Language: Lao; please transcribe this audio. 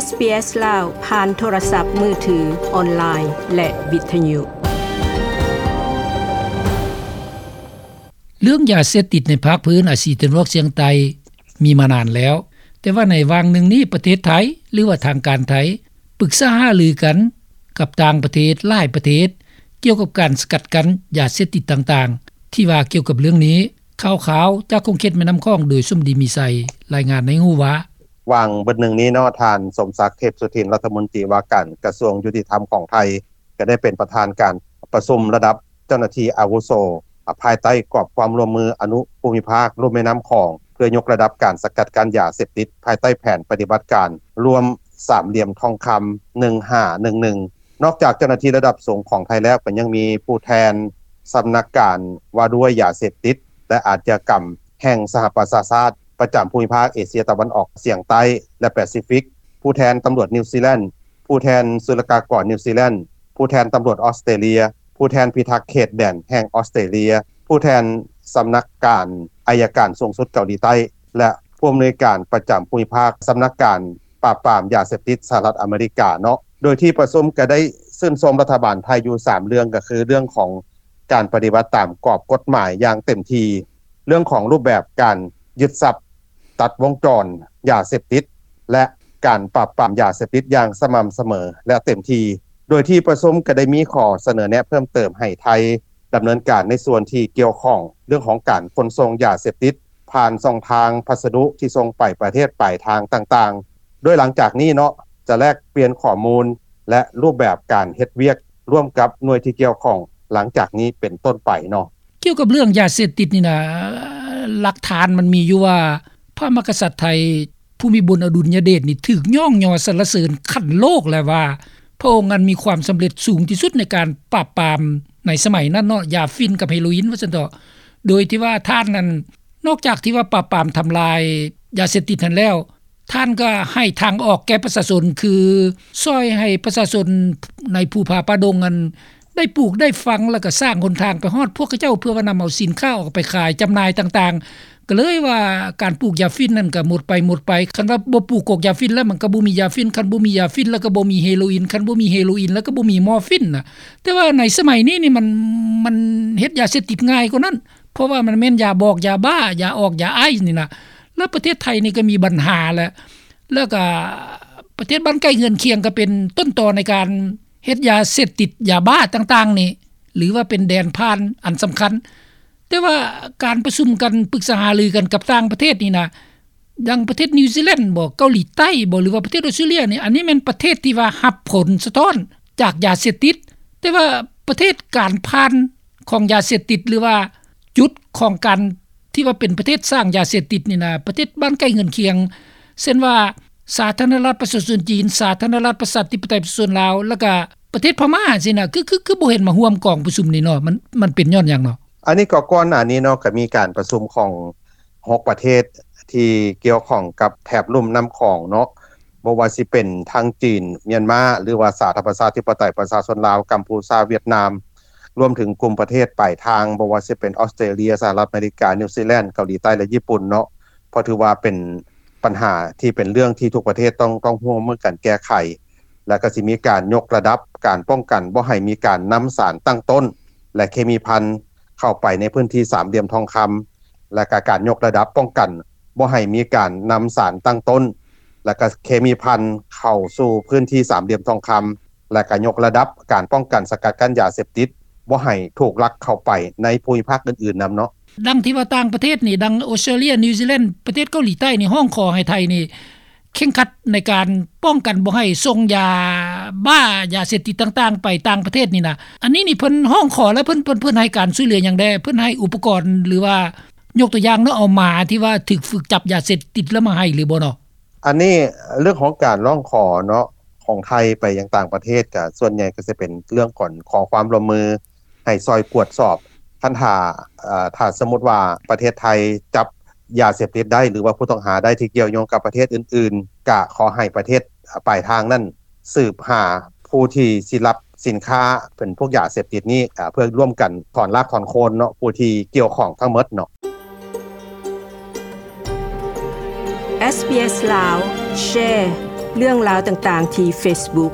ເອສບີເອສລາວ ຜ່ານໂທລະສັບມືຖື, ອອນລາຍ ແລະ ວິທະຍຸ. ເລື່ອງຢາເສບຕິດໃນພາກພື້ນອາຊີຕາເວັນອອກສຽງໃຕ້ມີມານານແລ້ວ, ແຕ່ວ່າໃນຫວ່າງໜຶ່ງນີ້ ປະເທດໄທ ຫຼືວ່າທາງການໄທ ປຶກສາຫາລືກັນກັບຕ່າງປະເທດຫຼາຍປະເທດ ກ່ຽວກັບການສະກັດກັ້ນຢາເສບຕິດຕ່າງໆ. ທີ່ວ່າກ່ຽວກັບເລື່ອງນີ້, ຂ່າວຄາວຈາກຂົງເຂດແມ່ນ້ຳຂອງ ໂດຍສົມດີມີໄຊ ລາຍງານໃຫ້ຮູ້ວ່າ, ຫວ່າງເບິດໜຶ່ງນີ້ເນາະ, ທ່ານ ສົມສັກ ເທບສຸທິນ ລັດຖະມົນຕີວ່າການກະຊວງຍຸຕິທຳຂອງໄທ ກໍໄດ້ເປັນປະທານການປະຊຸມລະດັບເຈົ້າໜ້າທີ່ອາວຸໂສ ພາຍໃຕ້ກອບຄວາມຮ່ວມມືອະນຸພູມິພາກລຸ່ມແມ່ນ້ຳຂອງ ເພື່ອຍົກລະດັບການສະກັດກັ້ນຢາເສບຕິດ ພາຍໃຕ້ແຜນປະຕິບັດການລວມສາມຫຼ່ຽມທອງຄຳ ໜຶ່ງຫ້າໜຶ່ງໜຶ່ງ. ນອກຈາກເຈົ້າໜ້າທີ່ລະດັບສູງຂອງໄທແລ້ວ ກໍຍັງມີຜູ້ແທນສຳນັກການວ່າດ້ວຍຢາເສບຕິດ ແລະ ອາດຍາກຳແຫ່ງສະຫະປະຊາຊາດ ປະຈຳພູມິພາກເອເຊຍຕາເວັນອອກສຽງໃຕ້ ແລະ ແປຊີຟິກ, ຜູ້ແທນຕຳຫຼວດນິວຊີແລນ, ຜູ້ແທນສຸລະກາກອນນິວຊີແລນ, ຜູ້ແທນຕຳຫຼວດອອສເຕຣເລຍ, ຜູ້ແທນພິທັກເຂດແດນແຫ່ງອອສເຕຣເລຍ, ຜູ້ແທນສຳນັກການໄອຍະການສູງສຸດເກົາຫຼີໃຕ້ ແລະ ຜູ້ອຳນວຍການປະຈຳພູມິພາກສຳນັກການປາບປາມຢາເສບຕິດສະຫະລັດອາເມລິກາເນາະ. ໂດຍທີ່ປະຊຸມກໍໄດ້ຊື່ນຊົມລັດຖະບານໄທຢູ່ສາມເລື່ອງ, ກໍຄືເລື່ອງຂອງການປະຕິບັດຕາມກອບກົດໝາຍຢ່າງເຕັມທີ່, ເລື່ອງຂອງຮູບແບບການຍຶດຊັບຕັດວົງຈອນຢາເສບຕິດ ແລະ ການປາບປາມຢາເສບຕິດຢ່າງສະໝ່ຳສະເໝີ ແລະ ເຕັມທີ່. ໂດຍທີ່ປະຊຸມກໍໄດ້ມີຂໍ້ສະເໜີແນະເພີ່ມເຕີມໃຫ້ໄທດຳເນີນການໃນສ່ວນທີ່ກ່ຽວຂ້ອງເລື່ອງຂອງການຂົນສົ່ງຢາເສບຕິດ ຜ່ານຊ່ອງທາງພັດສະດຸທີ່ສົ່ງໄປປະເທດປາຍທາງຕ່າງໆ, ໂດຍຫຼັງຈາກນີ້ເນາະ ຈະແລກປ່ຽນຂໍ້ມູນ ແລະ ຮູບແບບການເຮັດວຽກຮ່ວມກັບໜ່ວຍທີ່ກ່ຽວຂ້ອງຫຼັງຈາກນີ້ເປັນຕົ້ນໄປເນາະ. ກ່ຽວກັບເລື່ອງຢາເສບຕິດນີ້ນະ, ຫຼັກຖານມັນມີຢູ່ວ່າ ພະມະຫາກະສັດໄທ ພູມິບົນອະດຸນຍະເດດນີ້ ຖືກຍ້ອງຍໍສັນລະເສີນຂັ້ນໂລກແລ້ວວ່າ ພະອົງນັ້ນມີຄວາມສຳເລັດສູງທີ່ສຸດໃນການປາບປາມໃນສະໄໝນັ້ນເນາະ, ຢາຝິ່ນກັບເຮໂຣອິນວ່າຊັ້ນເຖາະ. ໂດຍທີ່ວ່າທ່ານນັ້ນ ນອກຈາກທີ່ວ່າປາບປາມທຳລາຍຢາເສບຕິດຫັ້ນແລ້ວ, ທ່ານກໍໃຫ້ທາງອອກແກ່ປະຊາຊົນ ຄືຊ່ອຍໃຫ້ປະຊາຊົນໃນພູຜາປ່າດົງນັ້ນ ໄດ້ປູກໄດ້ຝັງ ແລ້ວກໍສ້າງຫົນທາງໄປຮອດພວກເຂົາເຈົ້າ ເພື່ອວ່ານຳເອົາສິນຄ້າອອກໄປຂາຍຈຳໜ່າຍຕ່າງໆ. ກໍເລີຍວ່າການປູກຢາຝິ່ນນັ້ນກໍໝົດໄປ, ໝົດໄປ. ຄັນວ່າບໍ່ປູກກອກຢາຝິ່ນແລ້ວ ມັນກໍບໍ່ມີຢາຝິ່ນ, ຄັນບໍ່ມີຢາຝິ່ນແລ້ວ ກໍບໍ່ມີເຮໂຣອິນ, ຄັນບໍ່ມີເຮໂຣອິນແລ້ວ ກໍບໍ່ມີມໍຟີນນະ. ແຕ່ວ່າໃນສະໄໝນີ້ນີ້ ມັນ, ມັນເຮັດຢາເສບຕິດງ່າຍກວ່ານັ້ນ, ເພາະວ່າມັນແມ່ນຢາບອກ, ຢາບ້າ, ຢາອອກ, ຢາໄອສ໌ນີ້ນະ. ແລ້ວປະເທດໄທນີ້ກໍມີບັນຫາແຫຼະ, ແລ້ວກໍປະເທດບ້ານໃກ້ເຮືອນຄຽງ ກໍເປັນຕົ້ນຕໍໃນການເຮັດຢາເສບຕິດ, ຢາບ້າຕ່າງໆນີ້, ຫຼືວ່າເປັນແດນຜ່ານອັນສຳຄັນ. ແຕ່ວ່າການປະຊຸມກັນ, ປຶກສາຫາລືກັນກັບຕ່າງປະເທດນີ້ນະ, ດັ່ງປະເທດນິວຊີແລນບໍ, ເກົາຫຼີໃຕ້ບໍ, ຫຼືວ່າປະເທດອອສເຕຣເລຍນີ້, ອັນນີ້ແມ່ນປະເທດທີ່ວ່າຮັບຜົນສະທ້ອນຈາກຢາເສບຕິດ. ແຕ່ວ່າປະເທດການຜ່ານຂອງຢາເສບຕິດ ຫຼືວ່າຈຸດຂອງການທີ່ວ່າເປັນປະເທດສ້າງຢາເສບຕິດນີ້ນະ, ປະເທດບ້ານໃກ້ເຮືອນຄຽງ, ເຊັ່ນວ່າ ສາທາລະນະລັດປະຊາຊົນຈີນ, ສາທາລະນະລັດປະຊາທິປະໄຕປະຊາຊົນລາວ, ແລ້ວກະປະເທດພະມ້າຊີ້ນະ, ຄື, ຄື, ຄືບໍ່ເຫັນມາຮ່ວມກອງປະຊຸມນີ້ເນາະ? ມັນ, ມັນເປັນຍ້ອນຫຍັງເນາະ? ອັນນີ້ກໍກ່ອນໜ້ານີ້ເນາະ, ກໍມີການປະຊຸມຂອງຫົກປະເທດທີ່ກ່ຽວຂ້ອງກັບແຖບລຸ່ມນ້ຳຂອງເນາະ, ບໍ່ວ່າຊິເປັນທັງຈີນ, ມຽນມາ, ຫຼືວ່າສາທາລະນະລັດປະຊາທິປະໄຕປະຊາຊົນລາວ, ກຳພູຊາ, ຫວຽດນາມ, ລວມເຖິງກຸ່ມປະເທດປາຍທາງ, ບໍ່ວ່າຊິເປັນອອສເຕຣເລຍ, ສະຫະລັດອາເມລິກາ, ນິວຊີແລນ, ເກົາຫຼີໃຕ້ ແລະ ຍີ່ປຸ່ນເນາະ, ເພາະຖືວ່າເປັນ ບັນຫາທີ່ເປັນເລື່ອງທີ່ທຸກປະເທດຕ້ອງ, ຕ້ອງຮ່ວມມືກັນແກ້ໄຂ, ແລະ ກໍຊິມີການຍົກລະດັບການປ້ອງກັນບໍ່ໃຫ້ມີການນຳສານຕັ້ງຕົ້ນ ແລະ ເຄມີພັນເຂົ້າໄປໃນພື້ນທີ່ສາມຫຼ່ຽມທອງຄຳ, ແລະ ກໍການຍົກລະດັບປ້ອງກັນບໍ່ໃຫ້ມີການນຳສານຕັ້ງຕົ້ນ ແລະ ກໍເຄມີພັນເຂົ້າສູ່ພື້ນທີ່ສາມຫຼ່ຽມທອງຄຳ, ແລະ ກໍຍົກລະດັບການປ້ອງກັນສະກັດກັ້ນຢາເສບຕິດ ບໍ່ໃຫ້ຖືກລັກເຂົ້າໄປໃນພູມິພາກອື່ນໆນຳເນາະ. ດັ່ງທີ່ວ່າຕ່າງປະເທດນີ້, ດັ່ງອອສເຕຣເລຍ, ນິວຊີແລນ, ປະເທດເກົາຫຼີໃຕ້ນີ້ ຮ້ອງຂໍໃຫ້ໄທນີ້ເຄັ່ງຄັດໃນການປ້ອງກັນບໍ່ໃຫ້ສົ່ງຢາບ້າ, ຢາເສບຕິດຕ່າງໆໄປຕ່າງປະເທດນີ້ນະ. ອັນນີ້ນີ້ເພິ່ນຮ້ອງຂໍແລ້ວ ເພິ່ນ, ເພິ່ນ, ເພິ່ນໃຫ້ການຊ່ວຍເຫຼືອຫຍັງແດ່? ເພິ່ນໃຫ້ອຸປະກອນ ຫຼືວ່າ ຍົກຕົວຢ່າງເນາະ, ເອົາໝາທີ່ວ່າຖືກຝຶກຈັບຢາເສບຕິດແລ້ວມາໃຫ້ຫຼືບໍ່ເນາະ? ອັນນີ້ເລື່ອງຂອງການຮ້ອງຂໍເນາະ ຂອງໄທໄປຍັງຕ່າງປະເທດ ກະສ່ວນໃຫຍ່ກໍຈະເປັນເລື່ອງການຂໍຄວາມຮ່ວມມື ໃຫ້ຊ່ອຍກວດສອບ. ຄັນຖ້າ, ເອີ, ຖ້າສົມມຸດວ່າປະເທດໄທຈັບຢາເສບຕິດໄດ້ ຫຼືວ່າຜູ້ຕ້ອງຫາໄດ້ທີ່ກ່ຽວໂຍງກັບປະເທດອື່ນໆ, ກະຂໍໃຫ້ປະເທດປາຍທາງນັ້ນສືບຫາຜູ້ທີ່ຊິຮັບສິນຄ້າເປັນພວກຢາເສບຕິດນີ້, ເພື່ອຮ່ວມກັນຖອນຮາກຖອນໂຄນເນາະ, ຜູ້ທີ່ກ່ຽວຂ້ອງທັງໝົດເນາະ. ເອສບີເອສ ລາວ ແຊ ເລື່ອງລາວຕ່າງໆທີ່ເຟສບຸກ